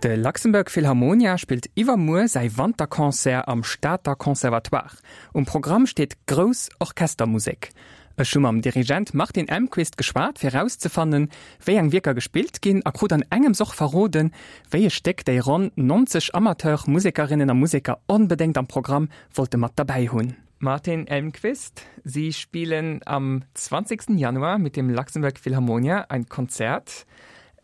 De Luxembourg Philharmonia spillt iwwermuer säi Wanterconcert am Stater Conservatoire. Um Programm steet grouss Orchestermusek. Ech hu mam Dirigent Martin Elmquist geschwat, fir erauszefannen, wéi eng Wierker gespillt ginn a krut an engems och verroden, wéi e Stéck déi ronn 90 Amateur-Musekerinnen a Museker onbedéngt am Programm wollte mat derbäi hunn. Martin Elmquist, Sie spielen am 20. Januar mit dem Luxembourg Philharmonia ein Konzert.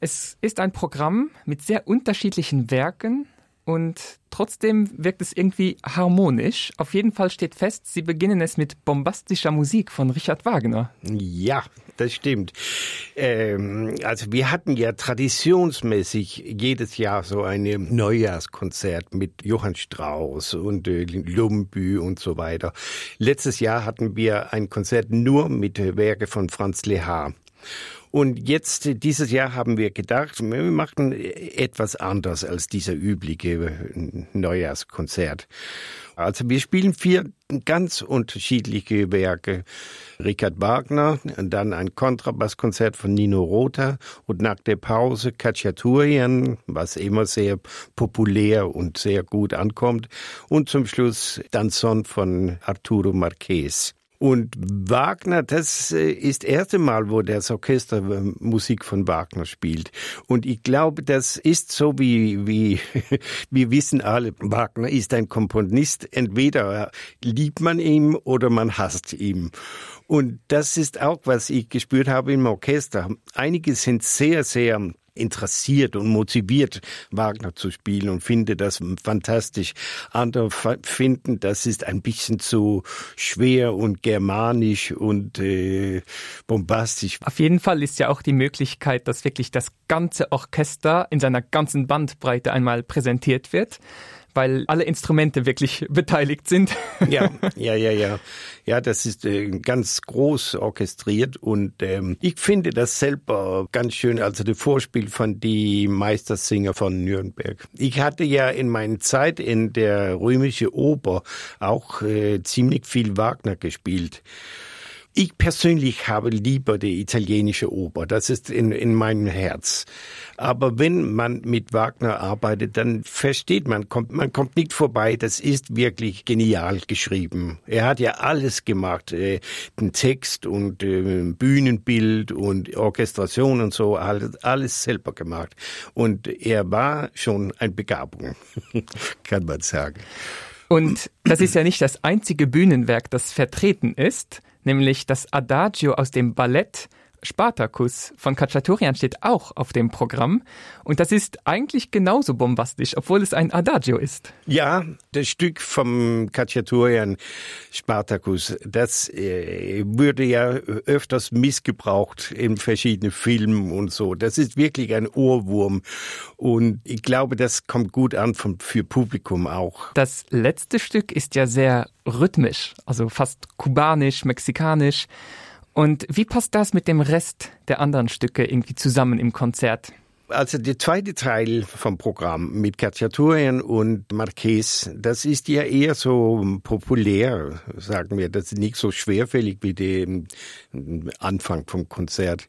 Es ist ein Programm mit sehr unterschiedlichen Werken und trotzdem wirkt es irgendwie harmonisch. Auf jeden Fall steht fest, Sie beginnen es mit bombastischer Musik von Richard Wagner. Ja, das stimmt. Ähm, also wir hatten ja traditionsmäßig jedes Jahr so ein Neujahrskonzert mit Johann Strauss und äh, Lumbü und so weiter. Letztes Jahr hatten wir ein Konzert nur mit Werke von Franz Lehar. Und jetzt dieses Jahr haben wir gedacht, wir machen etwas anders als dieser übliche Neujahrskonzert. Also wir spielen vier ganz unterschiedliche Werke. Richard Wagner und dann ein Kontrabasskonzert von Nino Rota und nach der Pause Cacciaturien, was immer sehr populär und sehr gut ankommt und zum Schluss Danzon von Arturo Marquez. Und Wagner, das äh, ist erste Mal, wo das Orchester äh, Musik von Wagner spielt. Und ich glaube, das ist so wie, wie wir wissen alle, Wagner ist ein Komponist. Entweder liebt man ihm oder man hasst ihm. Und das ist auch, was ich gespürt habe im Orchester. Einige sind sehr, sehr interessiert und motiviert, Wagner zu spielen und finde das fantastisch. Andere finden, das ist ein bisschen zu schwer und germanisch und äh, bombastisch. Auf jeden Fall ist ja auch die Möglichkeit, dass wirklich das ganze Orchester in seiner ganzen Bandbreite einmal präsentiert wird weil alle Instrumente wirklich beteiligt sind. Ja, ja, ja, ja. Ja, das ist äh, ganz groß orchestriert und ähm, ich finde das selber ganz schön, also das Vorspiel von die Meistersinger von Nürnberg. Ich hatte ja in meiner Zeit in der römische Oper auch äh, ziemlich viel Wagner gespielt. Ich persönlich habe lieber die italienische Oper, das ist in, in meinem Herz. Aber wenn man mit Wagner arbeitet, dann versteht man, kommt, man kommt nicht vorbei, das ist wirklich genial geschrieben. Er hat ja alles gemacht, äh, den Text und äh, Bühnenbild und Orchestration und so, alles, alles selber gemacht. Und er war schon ein Begabung, kann man sagen. Und das ist ja nicht das einzige Bühnenwerk, das vertreten ist nämlich das Adagio aus dem Ballett Spartacus von Cacciatorian steht auch auf dem Programm und das ist eigentlich genauso bombastisch, obwohl es ein Adagio ist. Ja, das Stück vom Cacciatorian Spartacus, das äh, würde ja öfters missgebraucht in verschiedenen Filmen und so. Das ist wirklich ein Ohrwurm und ich glaube, das kommt gut an vom, für Publikum auch. Das letzte Stück ist ja sehr rhythmisch, also fast kubanisch, mexikanisch. Und wie passt das mit dem Rest der anderen Stücke irgendwie zusammen im Konzert? Also der zweite Teil vom Programm mit Cacciaturien und Marquez, das ist ja eher so populär, sagen wir, das ist nicht so schwerfällig wie dem Anfang vom Konzert.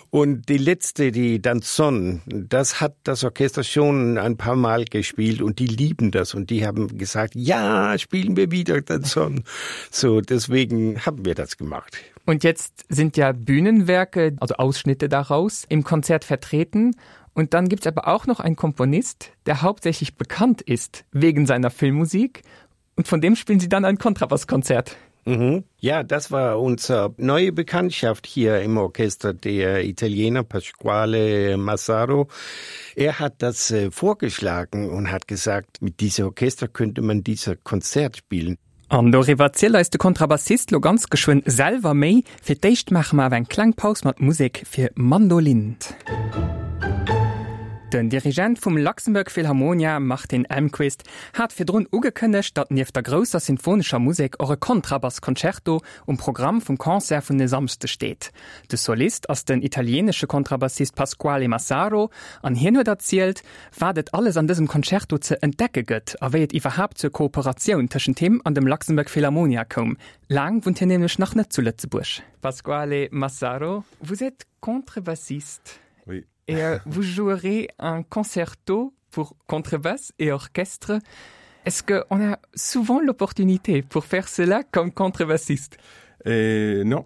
Und die letzte, die Danzon, das hat das Orchester schon ein paar Mal gespielt und die lieben das und die haben gesagt, ja, spielen wir wieder Danzon. So deswegen haben wir das gemacht. Und jetzt sind ja Bühnenwerke, also Ausschnitte daraus, im Konzert vertreten. Und dann gibt es aber auch noch einen Komponist, der hauptsächlich bekannt ist wegen seiner Filmmusik. Und von dem spielen sie dann ein Kontrabasskonzert. Mhm. Ja, das war unsere neue Bekanntschaft hier im Orchester, der Italiener Pasquale Massaro. Er hat das äh, vorgeschlagen und hat gesagt, mit diesem Orchester könnte man dieser Konzert spielen. An doriwwer zielt eis de Kontrabassist lo ganz geschwënn selwer méi. Fir d'éischt maache mer awer eng kleng Paus mat Musek fir Mandolin. Den Dirigent vum Luxembourg Philharmonia, Martin Elmquist, hat virdrun ugekënnegt, datt nieft der grousser sinfonescher Musek och e Kontrabass-Concerto um Programm vum Concert vun e Samschde steet. De Solist ass den italieenesche Kontrabassist Pasquale Massaro an hien huet erzielt, wat et alles an dësem Concerto ze entdecke gëtt a wéi et iwwerhaapt zur Kooperatioun tëschent him an dem Luxembourg Philharmonia koum. Laang wunnt hien nämlech nach net zu Lëtzebuerg. Pasquale Massaro, vous êtes contrebassiste. Oui. Et euh, vous jouerez un concerto pour contrebasse et orchestre. Est-ce qu'on a souvent l'opportunité pour faire cela comme contrebassiste? Et non,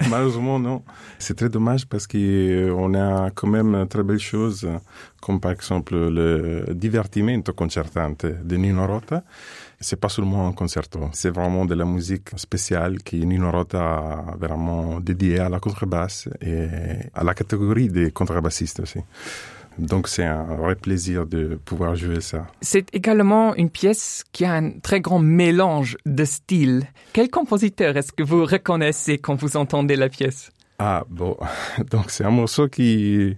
malheureusement non. C'est très dommage parce qu'on a quand même très belles choses, comme par exemple le divertimento concertante de Nino Rota. C'est pas seulement un concerto, c'est vraiment de la musique spéciale qui Nino Rota a vraiment dédiée à la contrebasse et à la catégorie des contrebassistes aussi. Donc c'est un vrai plaisir de pouvoir jouer ça. C'est également une pièce qui a un très grand mélange de styles. Quel compositeur est-ce que vous reconnaissez quand vous entendez la pièce? Ah bon, donc c'est un morceau qui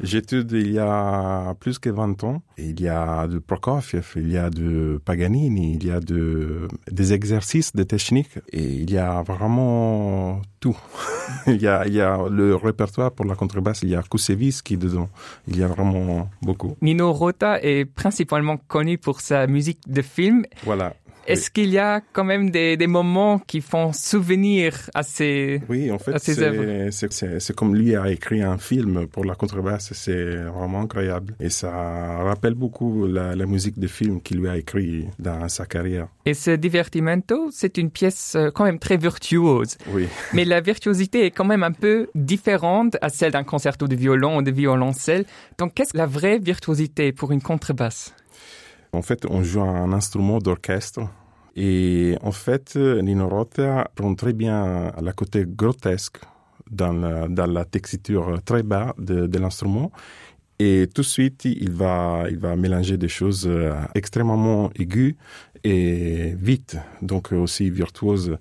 j'étude il y a plus que 20 ans. Il y a de Prokofiev, il y a de Paganini, il y a de, des exercices de technique et il y a vraiment tout. il, y a, il y a le répertoire pour la contrebasse, il y a Koussevitzky dedans. Il y a vraiment beaucoup. Nino Rota est principalement connu pour sa musique de film. Voilà. Est-ce oui. qu'il y a quand même des, des moments qui font souvenir à ces Oui, en fait, c'est comme lui a écrit un film pour la contrebasse, c'est vraiment incroyable. Et ça rappelle beaucoup la, la musique de film qu'il lui a écrit dans sa carrière. Et ce divertimento, c'est une pièce euh, quand même très virtuose. Oui. Mais la virtuosité est quand même un peu différente à celle d'un concerto de violon ou de violoncelle. Donc qu'est-ce la vraie virtuosité pour une contrebasse? En fait, on joue un instrument d'orchestre Et en fait, Nino Rota prend très bien la côté grotesque dans la, dans la texture très bas de, de l'instrument. Et tout de suite, il va, il va mélanger des choses euh, extrêmement aiguës et vite, donc aussi virtuoses,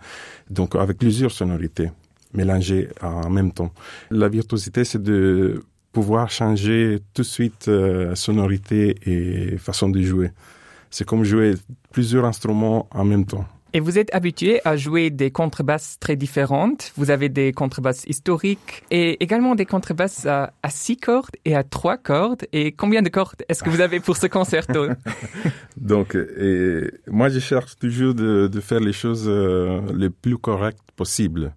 donc avec plusieurs sonorités mélangées en même temps. La virtuosité, c'est de pouvoir changer tout de suite euh, sonorité et façon de jouer. C'est comme jouer plusieurs instruments en même temps. Et vous êtes habitué à jouer des contrebasses très différentes. Vous avez des contrebasses historiques et également des contrebasses à, à six cordes et à trois cordes. Et combien de cordes est-ce que vous avez pour ce concerto? Donc et moi je cherche toujours de, de faire les choses euh, les plus correctes possibles.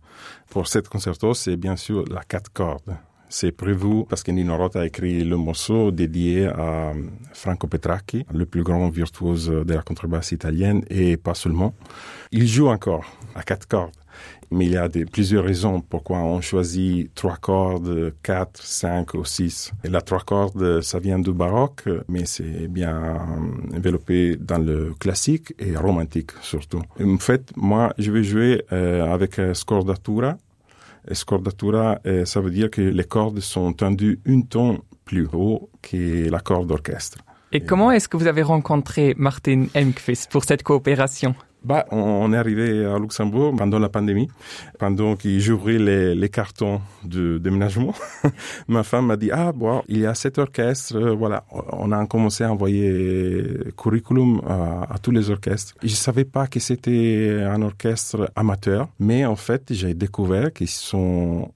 Pour cette concerto, c'est bien sûr la quatre cordes c'est prévu parce que Nino Rota a écrit le morceau dédié à euh, Franco Petracchi, le plus grand virtuose de la contrebasse italienne et pas seulement. Il joue encore à quatre cordes. Mais il y a des, plusieurs raisons pourquoi on choisit trois cordes, quatre, cinq ou six. Et la trois cordes, ça vient du baroque, mais c'est bien développé dans le classique et romantique surtout. Et en fait, moi, je vais jouer euh, avec euh, scordatura, Scordatura, euh, ça veut dire que les cordes sont tendues une ton plus haut que la corde d'orchestre. Et, Et comment est-ce que vous avez rencontré Martin Emqvist pour cette coopération? Bah, on, on est arrivé à Luxembourg pendant la pandémie, pendant qu'il j'ouvrais les, les cartons de déménagement. Ma femme m'a dit ah bon, il y a cet orchestre, euh, voilà, on a commencé à envoyer curriculum à, à tous les orchestres. Je savais pas que c'était un orchestre amateur, mais en fait, j'ai découvert qu'ils sont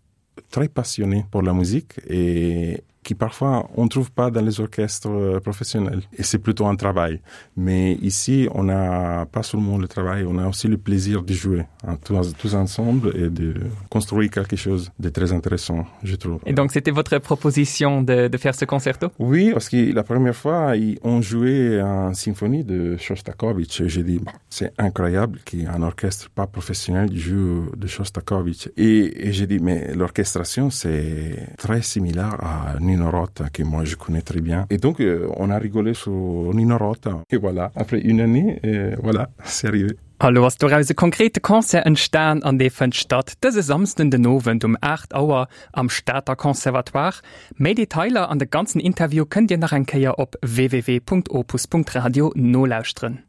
très passionnés pour la musique et qui parfois on trouve pas dans les orchestres euh, professionnels et c'est plutôt un travail mais ici on n'a pas seulement le travail on a aussi le plaisir de jouer hein, tous, tous ensemble et de construire quelque chose de très intéressant je trouve et donc c'était votre proposition de, de faire ce concerto oui parce que la première fois ils ont joué en symphonie de Shostakovich j'ai dit bon, c'est incroyable qu'un orchestre pas professionnel joue de Shostakovich et, et j'ai dit mais l'orchestration c'est très similaire à Nino Rota que moi je connais très bien et donc euh, on a rigolé sur Nino Rota et voilà après une année et voilà c'est arrivé A lo ass doraus e konkrete Concert entstan an dee fënnt statt dëse Samsden den Owend um 8 Auer am Stater Conservatoire. Méi Detailer an de ganzen Interview kënnt Dir nach eng Kéier op www.opus.radio nolauschteren.